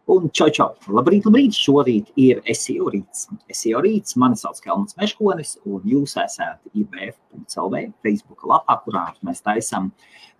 Un čau. Labrīt. Šorīt ir SEO rīts. SEO rīts, mani sauc Helmuts Meškonis, un jūs esat IBF.CLV Facebook lapā, kurā mēs taisam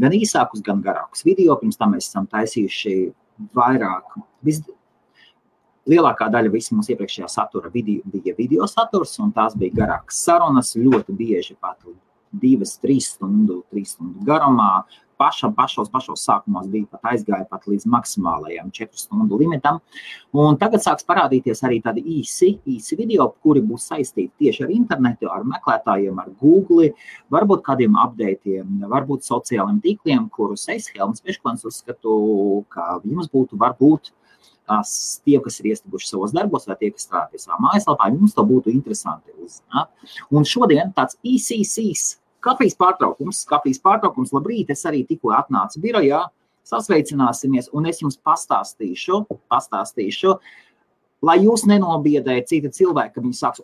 gan īsākus, gan garākus video. Pirms tam mēs esam taisījuši vairāk. Lielākā daļa visu mums iepriekšējā satura bija video saturs, un tās bija garākas sarunas, ļoti bieži pat 2-3 stundu garumā. Pašos sākumos bija pat aizgāja pat līdz maksimālajam 4 stundu limitam. Un tagad sāks parādīties arī tādi īsi video, kuri būs saistīti tieši ar internetu, ar meklētājiem, ar Google, varbūt kādiem updateiem, varbūt sociāliem tīkliem, kurus es, Helmuts Meškonis, uzskatu, ka jums būtu varbūt tie, kas ir iestabuši savos darbos, vai tie, kas strādā pie savā mājaslapā, jums to būtu interesanti uzzināt. Un šodien tāds īs kafijas pārtraukums, labrīt, es arī tikko atnācu birojā, sasveicināsimies, un es jums pastāstīšu, lai jūs nenobiedējat citi cilvēki, ka viņi sāks,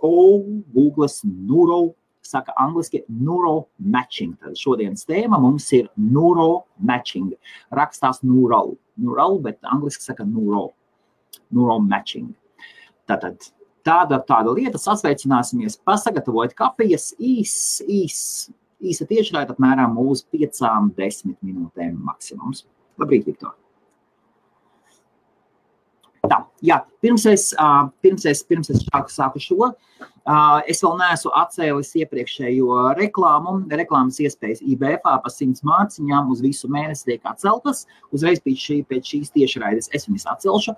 Googles neuro, saka angliski neuro matching. Tad šodienas tēma mums ir neuro matching. Rakstās neural, bet angliski saka neuro matching. Tātad tāda lieta, sasveicināsimies, pasagatavojot kafijas īsa tiešraide apmēram uz 5-10 minūtēm maksimums. Labrīt, Viktor. Tā, jā, pirms es sāku šo, es vēl neesmu atcēlis iepriekšējo reklāmas iespējas IBF-ā pa 100 mārciņām uz visu mēnesi tiek atceltas, uzreiz pēc šīs tiešraides es viņas atcelšu.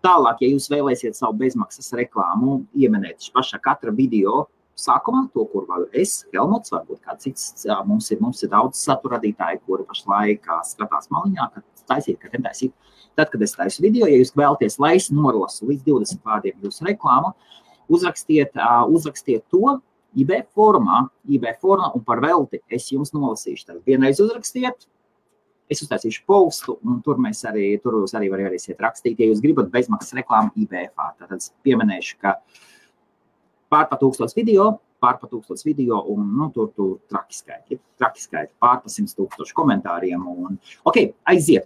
Tālāk, ja jūs vēlēsiet savu bezmaksas reklāmu ieminēt pašā katra video sākumā, to, kur varu es, Helmuts, varbūt kāds cits, mums ir daudz saturradītāji, kuri pašlaik skatās maliņā, kad netaisīt. Tad, kad es taisu video, ja jūs vēlaties, lai es norosu līdz 20 vārdiem jūsu reklāmu, uzrakstiet to IBF formā, un par velti es jums nolasīšu. Tad vienreiz uzrakstiet, es uztaisīšu postu, un tur jūs arī varēsiet rakstīt, ja jūs gribat bezmaksas reklāmu IBF-ā. Tad pieminēšu, ka pār pa 1000 video, un tur traki skaiti, pār pa 100 000 komentāriem. Aiziet.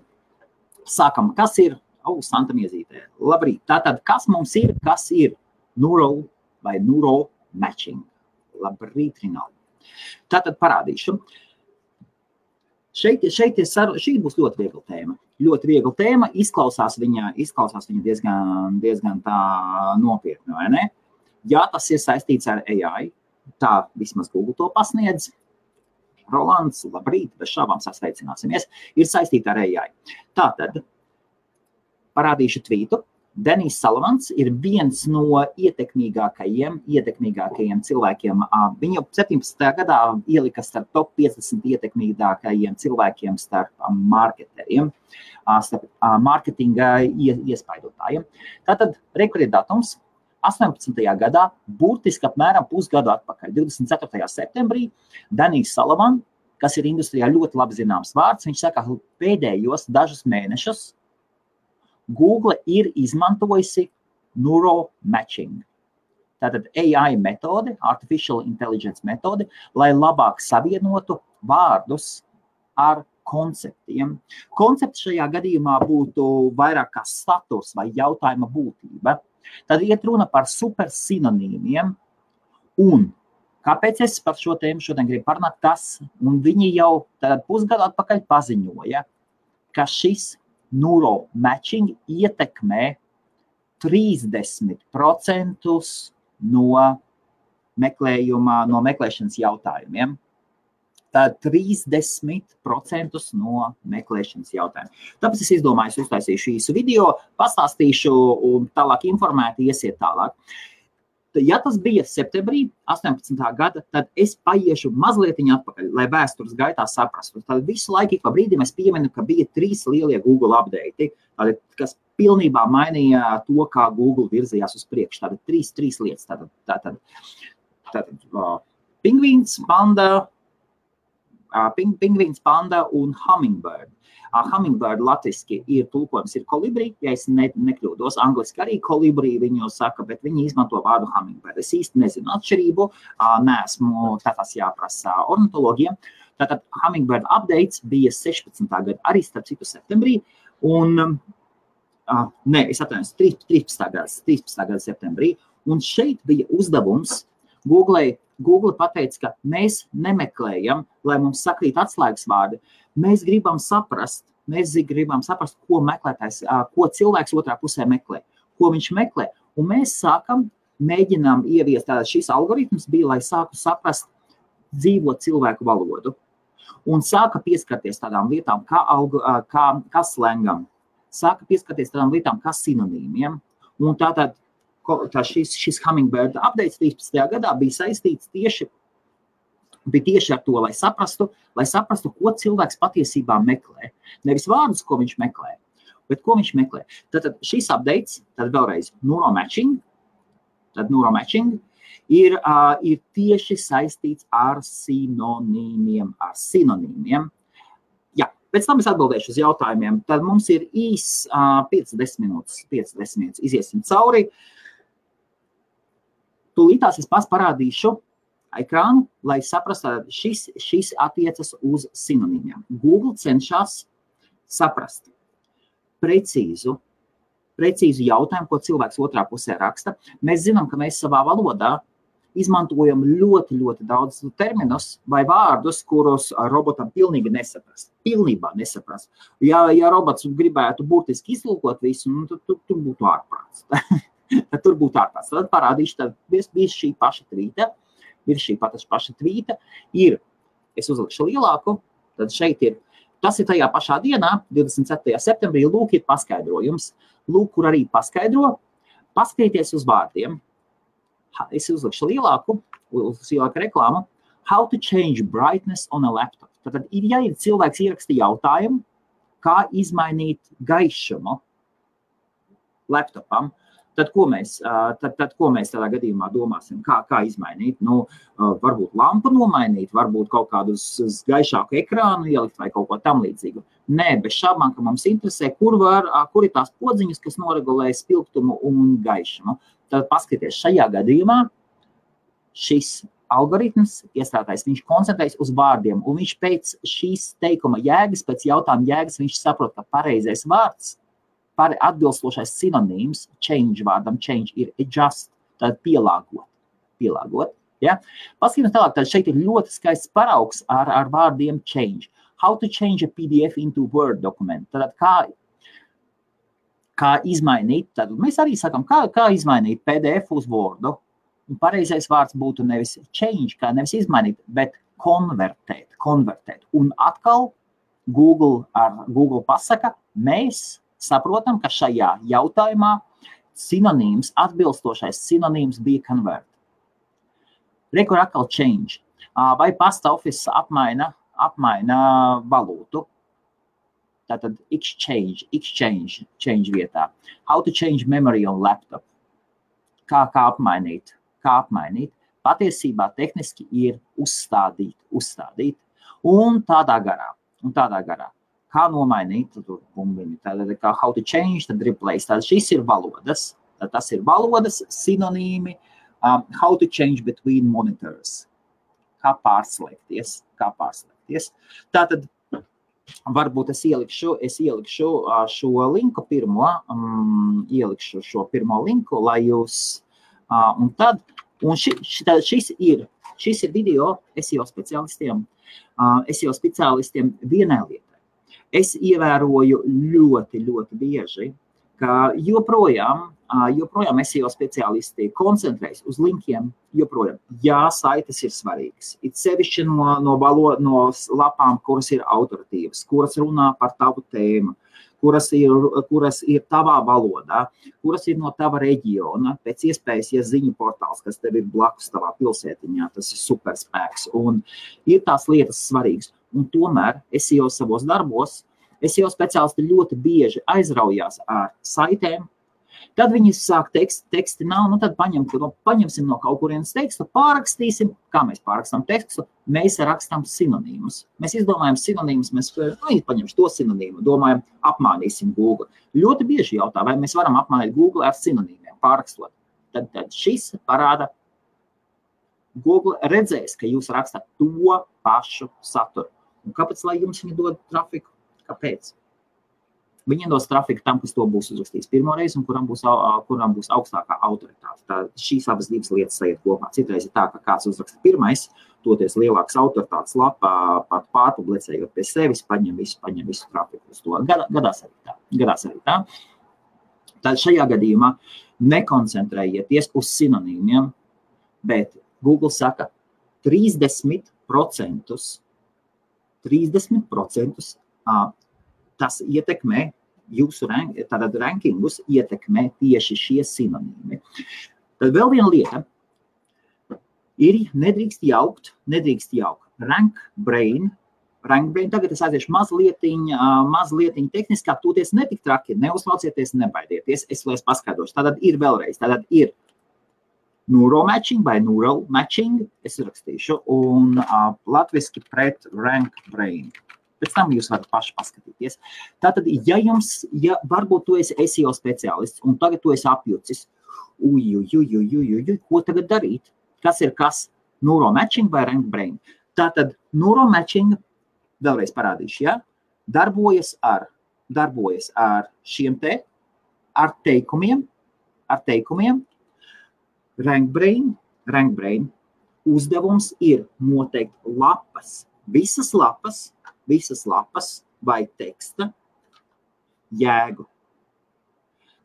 Sākam, kas ir? Santa Miezītē. Labrīt. Tātad, kas mums ir? Kas ir neural vai neuro matching? Labrīt, Rinaldi. Tātad parādīšu. Šī būs ļoti viegla tēma. Izklausās viņa diezgan tā nopietni, vai ne? Ja tas ir saistīts ar AI, tā vismaz Google to pasniedz. Rolands, labrīt, bez šābām sasveicināsimies, ir saistīta ar AI. Tātad, parādīšu tvītu. Denijs Salavans ir viens no ietekmīgākajiem cilvēkiem. Viņu 17. gadā ielika starp top 50 ietekmīgākajiem cilvēkiem starp marketeriem, starp marketinga iespaidotājiem. Tātad, rekorddatums 18. gadā, burtiski apmēram pusgadu atpakaļ, 24. septembrī, Denijs Salavans, kas ir industrijā ļoti labi zināms vārds, viņš saka, pēdējos dažus mēnešus Google ir izmantojusi neuro matching. Tātad AI metode, artificial intelligence metode, lai labāk savienotu vārdus ar konceptiem. Koncepts šajā gadījumā būtu vairāk kā staturs vai jautājuma būtība. Tad iet runa par supersinonīmiem. Un kāpēc es par šo tēmu šodien gribu parunāt? Un viņi jau pusgadu atpakaļ paziņoja, ka šis neuro matching ietekmē 30% no meklēšanas jautājumiem. Tad 30% no meklēšanas jautājumiem. Tāpēc es izdomāju, uztaisīšu īsu video, pastāstīšu un tālāk informēti iesiet tālāk. Ja tas bija septembrī 18. gada, tad es paiešu mazliet atpakaļ, lai vēstures gaitā saprastu. Tad visu laiku pa brīdim es pieminu, ka bija 3 lielie Google update, kas pilnībā mainīja to, kā Google virzījās uz priekšu. Tātad 3 lietas. Tātad Pingvīns, Panda un Hummingbird. Hummingbird latviski tulkojums ir kolibri, ja es nekļūdos, angliski arī kolibri viņu saka, bet viņi izmanto vārdu Hummingbird. Es īsti nezinu atšķirību, neesmu tas jāprasa ornitologiem. Tātad Hummingbird updates bija 16. gada, arī starp citu septembrī, un es atvainojos, 13. gada septembrī, un šeit bija uzdevums Google pateica, ka mēs nemeklējam, lai mums sakrīt atslēgas vārdi. Mēs gribam saprast, ko meklētājs, ko cilvēks otrā pusē meklē, ko viņš meklē. Un mēs mēģinām ieviest, šis algoritms bija, lai sāku saprast dzīvo cilvēku valodu. Un sāka pieskarties tādām lietām, kā slengam, sāka pieskarties tādām lietām, kā sinonīmiem. Un tātad šis Hummingbird updates 13. gadā bija saistīts tieši ar to, lai saprastu, ko cilvēks patiesībā meklē. Nevis vārdus, ko viņš meklē, bet ko viņš meklē. Tātad šis updates, tad vēlreiz neuromatching, ir tieši saistīts ar sinonīmiem. Jā, pēc tam es atbildēšu uz jautājumiem. Tad mums ir 5-10 minūtes, iziesim cauri. Tūlītās es parādīšu ekrānu, lai saprastu, šis attiecas uz sinonīmiem. Google cenšas saprast precīzu jautājumu, ko cilvēks otrā pusē raksta. Mēs zinām, ka mēs savā valodā izmantojam ļoti, ļoti daudz terminus vai vārdus, kurus robotam pilnībā nesaprast. Ja robots gribētu burtiski izlūkot visu, tad tur būtu ārprāts. Tad parādīšu, tad virs šī paša tvīta ir, es uzlikšu lielāku, tad šeit ir, tas ir tajā pašā dienā, 27. septembrī, lūk, ir paskaidrojums. Lūk, kur arī paskaidro, paskatīties uz vārdiem. Es uzlikšu lielāku reklāmu. How to change brightness on a laptop. Tad, ja ir cilvēks ieraksta jautājumu, kā izmainīt gaišumu laptopam, tad ko mēs tādā gadījumā domāsim? Kā izmainīt? Varbūt lampu nomainīt, varbūt kaut kādu uz gaišāku ekrānu ielikt vai kaut ko tam līdzīgu. Nē, bez šaubām, ka mums interesē, kur ir tās podziņas, kas noregulē spilgtumu un gaišumu. Tad paskaties, šajā gadījumā šis algoritms iestrādājis, viņš koncentrējas uz vārdiem, un viņš pēc šīs teikuma jēgas, pēc jautājuma jēgas, viņš saprot, ka pareizais vārds, atbilstošais sinonīms change vārdam, change ir adjust, tad pielāgot. Ja? Paskatīsim tālāk, tad šeit ir ļoti skaists paraugs ar vārdiem change. How to change a PDF into Word dokumentu. Tad kā izmainīt, tad mēs arī sakam, kā izmainīt PDF uz Wordu. Un pareizais vārds būtu nevis change, kā nevis izmainīt, bet konvertēt. Un atkal Google pasaka, mēs saprotam, ka šajā jautājumā sinonīms, atbilstošais sinonīms bija convert. Rekur atkal change. Vai pasta office apmaina valūtu. Tātad exchange vietā. How to change memory on laptop. Kā apmainīt. Patiesībā tehniski ir uzstādīt. Un tādā garā. Kā nomainīt, kā how to change, tad replace. Tad šis ir valodas. Tas ir valodas sinonīmi. How to change between monitors. Kā pārslēgties. Tātad varbūt es ielikšu šo linku pirmo, lai jūs, šis ir video SEO speciālistiem vienai lietai. Es ievēroju ļoti, ļoti bieži, ka joprojām SEO speciālisti koncentrējas uz linkiem, joprojām. Jā, saites ir svarīgas. It sevišķi no lapām, kuras ir autoritīvas, kuras runā par tavu tēmu, kuras ir tavā valodā, kuras ir no tava reģiona. Pēc iespējas, ja ziņu portāls, kas tev ir blakus tavā pilsētiņā, tas ir superspēks. Un ir tās lietas svarīgas. Un tomēr SEO savos darbos, SEO speciālisti ļoti bieži aizraujās ar saitēm. Tad viņi sāk teksti nav, tad paņemsim no kaut kurienes tekstu, pārrakstīsim. Kā mēs pārrakstām tekstu? Mēs rakstām sinonīmus. Mēs izdomājam sinonīmus, mēs paņemšu to sinonīmu, domājam, apmānīsim Google. Ļoti bieži jautā, vai mēs varam apmānīt Google ar sinonīmiem, pārrakstot. Tad šis parāda, Google redzēs, ka jūs rakstat to pašu saturu. Un kāpēc, lai jums viņi dod trafiku? Kāpēc? Viņi iedos trafiku tam, kas to būs uzrakstījis pirmoreiz un kuram būs augstākā autoritāte. Tā, šīs abas divas lietas sajiet kopā. Citreiz ir tā, ka kāds uzraksta pirmais, toties lielāks autoritātes lapā, pat pārpublicējot pie sevis, paņem visu trafiku uz to. Gadās arī tā. Tad šajā gadījumā nekoncentrējieties uz sinonīmiem, bet Google saka 30% tas ietekmē jūsu rankingus, ietekmē tieši šie sinonīmi. Tad vēl viena lieta ir nedrīkst jaukt RankBrain. Tagad es aiziešu mazlietiņ tehniskāk, toties netik traki, neuzlaucieties, nebaidieties, es vēl paskaidrošu. Tātad ir vēlreiz, ir neuromatching vai neural matching, es rakstīšu, un latviski pret RankBrain. Pēc tam jūs varat paši paskatīties. Tātad, ja varbūt tu esi SEO speciālists, un tagad tu esi apjucis, ko tagad darīt? Kas ir kas? Neuromatching vai RankBrain? Tātad, neuromatching, vēlreiz parādīšu, ja? Darbojas ar šiem ar teikumiem. RankBrain uzdevums ir noteikt lapas, visas lapas vai teksta jēgu.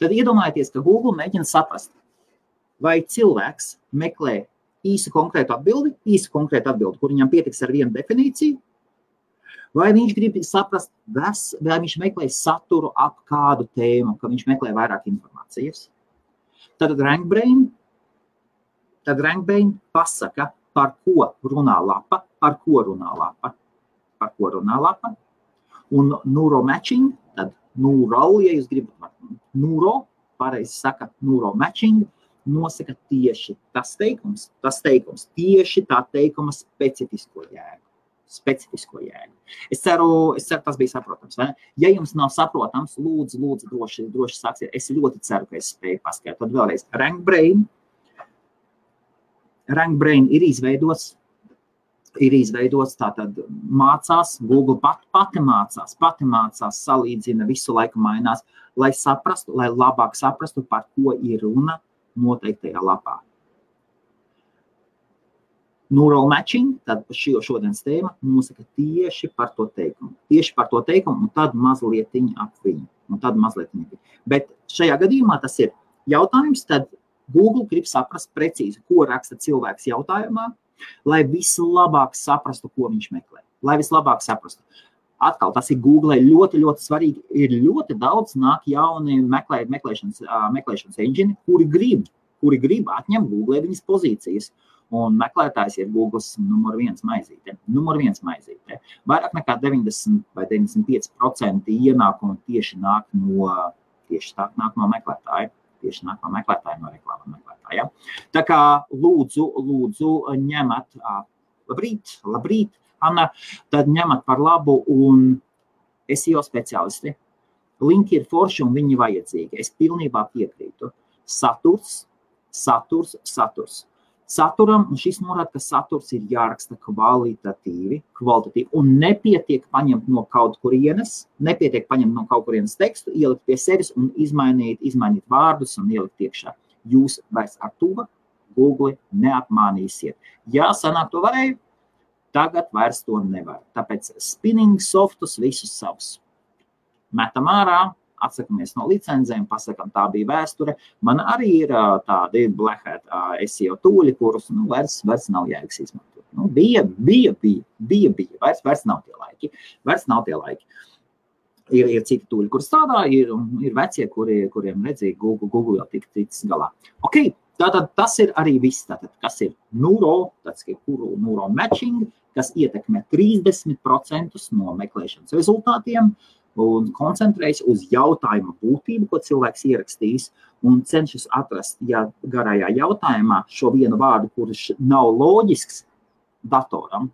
Tad iedomājieties, ka Google mēģina saprast, vai cilvēks meklē īsu konkrētu atbildi, kur viņam pietiks ar vienu definīciju, vai viņš grib saprast, vai viņš meklē saturu ap kādu tēmu, ka viņš meklē vairāk informācijas. Tad RankBrain pasaka, par ko runā lapa, un neuromatching, tad neural, ja jūs gribat, pareizi saka, neuromatching, nosaka tieši tas teikums, tieši tā teikuma specifisko jēgu. Es ceru, tas bija saprotams, vai ne? Ja jums nav saprotams, lūdzu, droši sāksiet. Es ļoti ceru, ka es spēju paskaidrot. Tad vēlreiz, RankBrain ir izveidots, tātad mācās, Google pati mācās, salīdzina, visu laiku mainās, lai labāk saprastu, par ko ir runa noteiktajā lapā. Neural matching, tad šodienas tēma nosaka tieši par to teikumu, un tad mazlietiņi ap viņu. Bet šajā gadījumā tas ir jautājums, tad Google grib saprast precīzi, ko raksta cilvēks jautājumā, lai vislabāk saprastu, ko viņš meklē. Atkal, tas ir Google ļoti, ļoti svarīgi. Ir ļoti daudz nāk jauni meklēšanas engine, kuri grib atņemt Google viņas pozīcijas. Un meklētājs ir Googles numur viens maizīte. Vairāk nekā 90 vai 95% ieņēmumu tieši nāk no meklētāja. No reklāmas meklētāja. Tā kā lūdzu ņemat, labrīt, Anna, tad ņemat par labu un SEO speciālisti. Linki ir forši un viņi vajadzīgi. Es pilnībā piekrītu. Saturs. Saturam, un šis norāda, ka saturs ir jāraksta kvalitatīvi, un nepietiek paņemt no kaut kurienes tekstu, ielikt pie sevis un izmainīt vārdus un ielikt iekšā. Jūs vairs ar to Google neapmānīsiet. Ja sanāk to varēja, tagad vairs to nevar. Tāpēc spinning softus visus savus metam ārā, atsakamies no licencēm, pasakam, tā bija vēsture. Man arī ir tādi black hat SEO tūļi, kurus vairs nav jēgas izmantot. Bija, vairs nav tie laiki. Ir citi tūļi, kur strādā, ir vecie, kuriem redzīgi Google jau tiks galā. Ok, tātad tas ir arī viss. Tātad, kas ir neuro matching, kas ietekmē 30% no meklēšanas rezultātiem, un koncentrējas uz jautājumu būtību, ko cilvēks ierakstīs, un cenšas atrast, garajā jautājumā šo vienu vārdu, kurš nav loģisks datoram,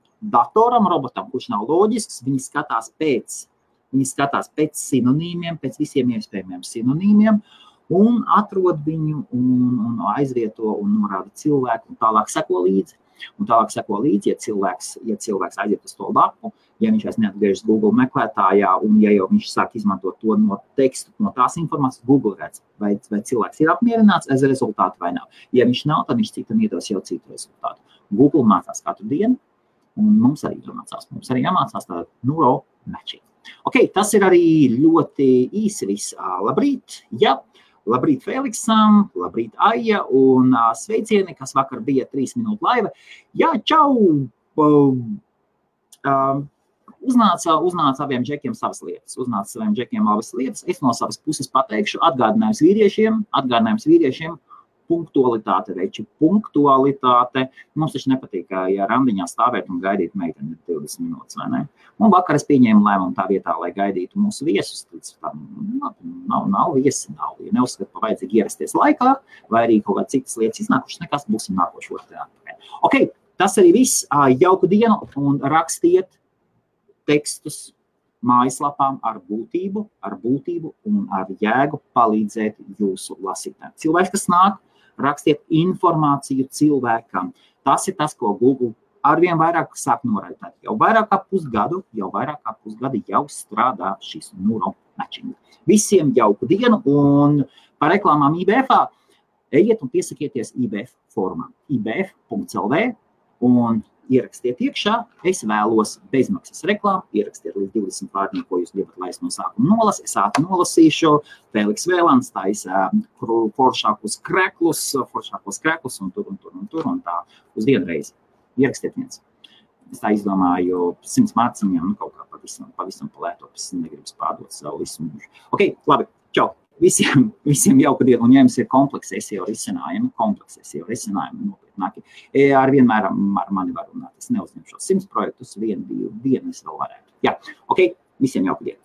robotam, kurš nav loģisks, viņi skatās pēc sinonīmiem, pēc visiem iespējamiem sinonīmiem, un atrod viņu, un aizvieto, un norāda cilvēku, un tālāk seko līdzi. Un tālāk seko līdzi, ja cilvēks aiziet uz to lapu, ja viņš vairs neatgriežas Google meklētājā, un ja jau viņš sāk izmantot to no tekstu, no tās informācijas, Google redz, vai cilvēks ir apmierināts ar rezultātu vai nav. Ja viņš nav, tad viņš citam iedos jau citu rezultātu. Google mācās katru dienu, un mums arī jāmācās. Mums arī jāmācās tāda neuro matching. Ok, tas ir arī ļoti īsi viss. Labrīt, ja. Labrīt Feliksam, labrīt Aija un sveicieni, kas vakar bija 3 minūtu laiva. Jā, čau! Uznāca abiem džekiem savas lietas. Uznāca saviem džekiem labas lietas. Es no savas puses pateikšu atgādinājums vīriešiem, punktualitāte, veči, punktualitāte. Mums taču nepatīk, ja randiņā stāvēt un gaidīt meiteni 20 minūtes, vai ne? Un vakar es pieņēmu lēmumu tā vietā, lai gaidītu mūsu viesus. Nav viesi, nav. Ja neuzskat pa vajadzīgi ierasties laikā, vai arī kaut kāda citas lietas iznākušas, nekas būsim nākošo. Ok, tas arī viss. Jauku dienu un rakstiet tekstus mājaslapām ar būtību un ar jēgu palīdzēt jūsu lasītājiem. Cilvēks, kas nāk, rakstiet informāciju cilvēkam. Tas ir tas, ko Google arvien vairāk sāk noraidīt. Jau vairāk kā pusgadu jau strādā šis neuro matching. Visiem jauku dienu un par reklāmām IBF-ā ejiet un piesakieties IBF formā. IBF.lv un ierakstiet iekšā, es vēlos bezmaksas reklāmu, ierakstiet līdz 20 vārdiem, ko jūs gribat laist no sākuma nolas. Es ātri nolasīšu, Feliks Vēlans taisa foršākos kreklus un tur un tā uz vienu reizi. Ierakstiet viens. Es tā izdomāju 100 mārciņām, kaut kā pavisam palētot, es negribu spārdot savu visu mūžu. Ok, labi, čau! Visiem jauka diena, un ja jums ir komplekss SEO risinājumi nopietnāki, ar vienmēr ar mani var runāt. Es neuzņemšos 100 projektus, vienu es vēl varētu. Jā, ok, visiem jauka diena.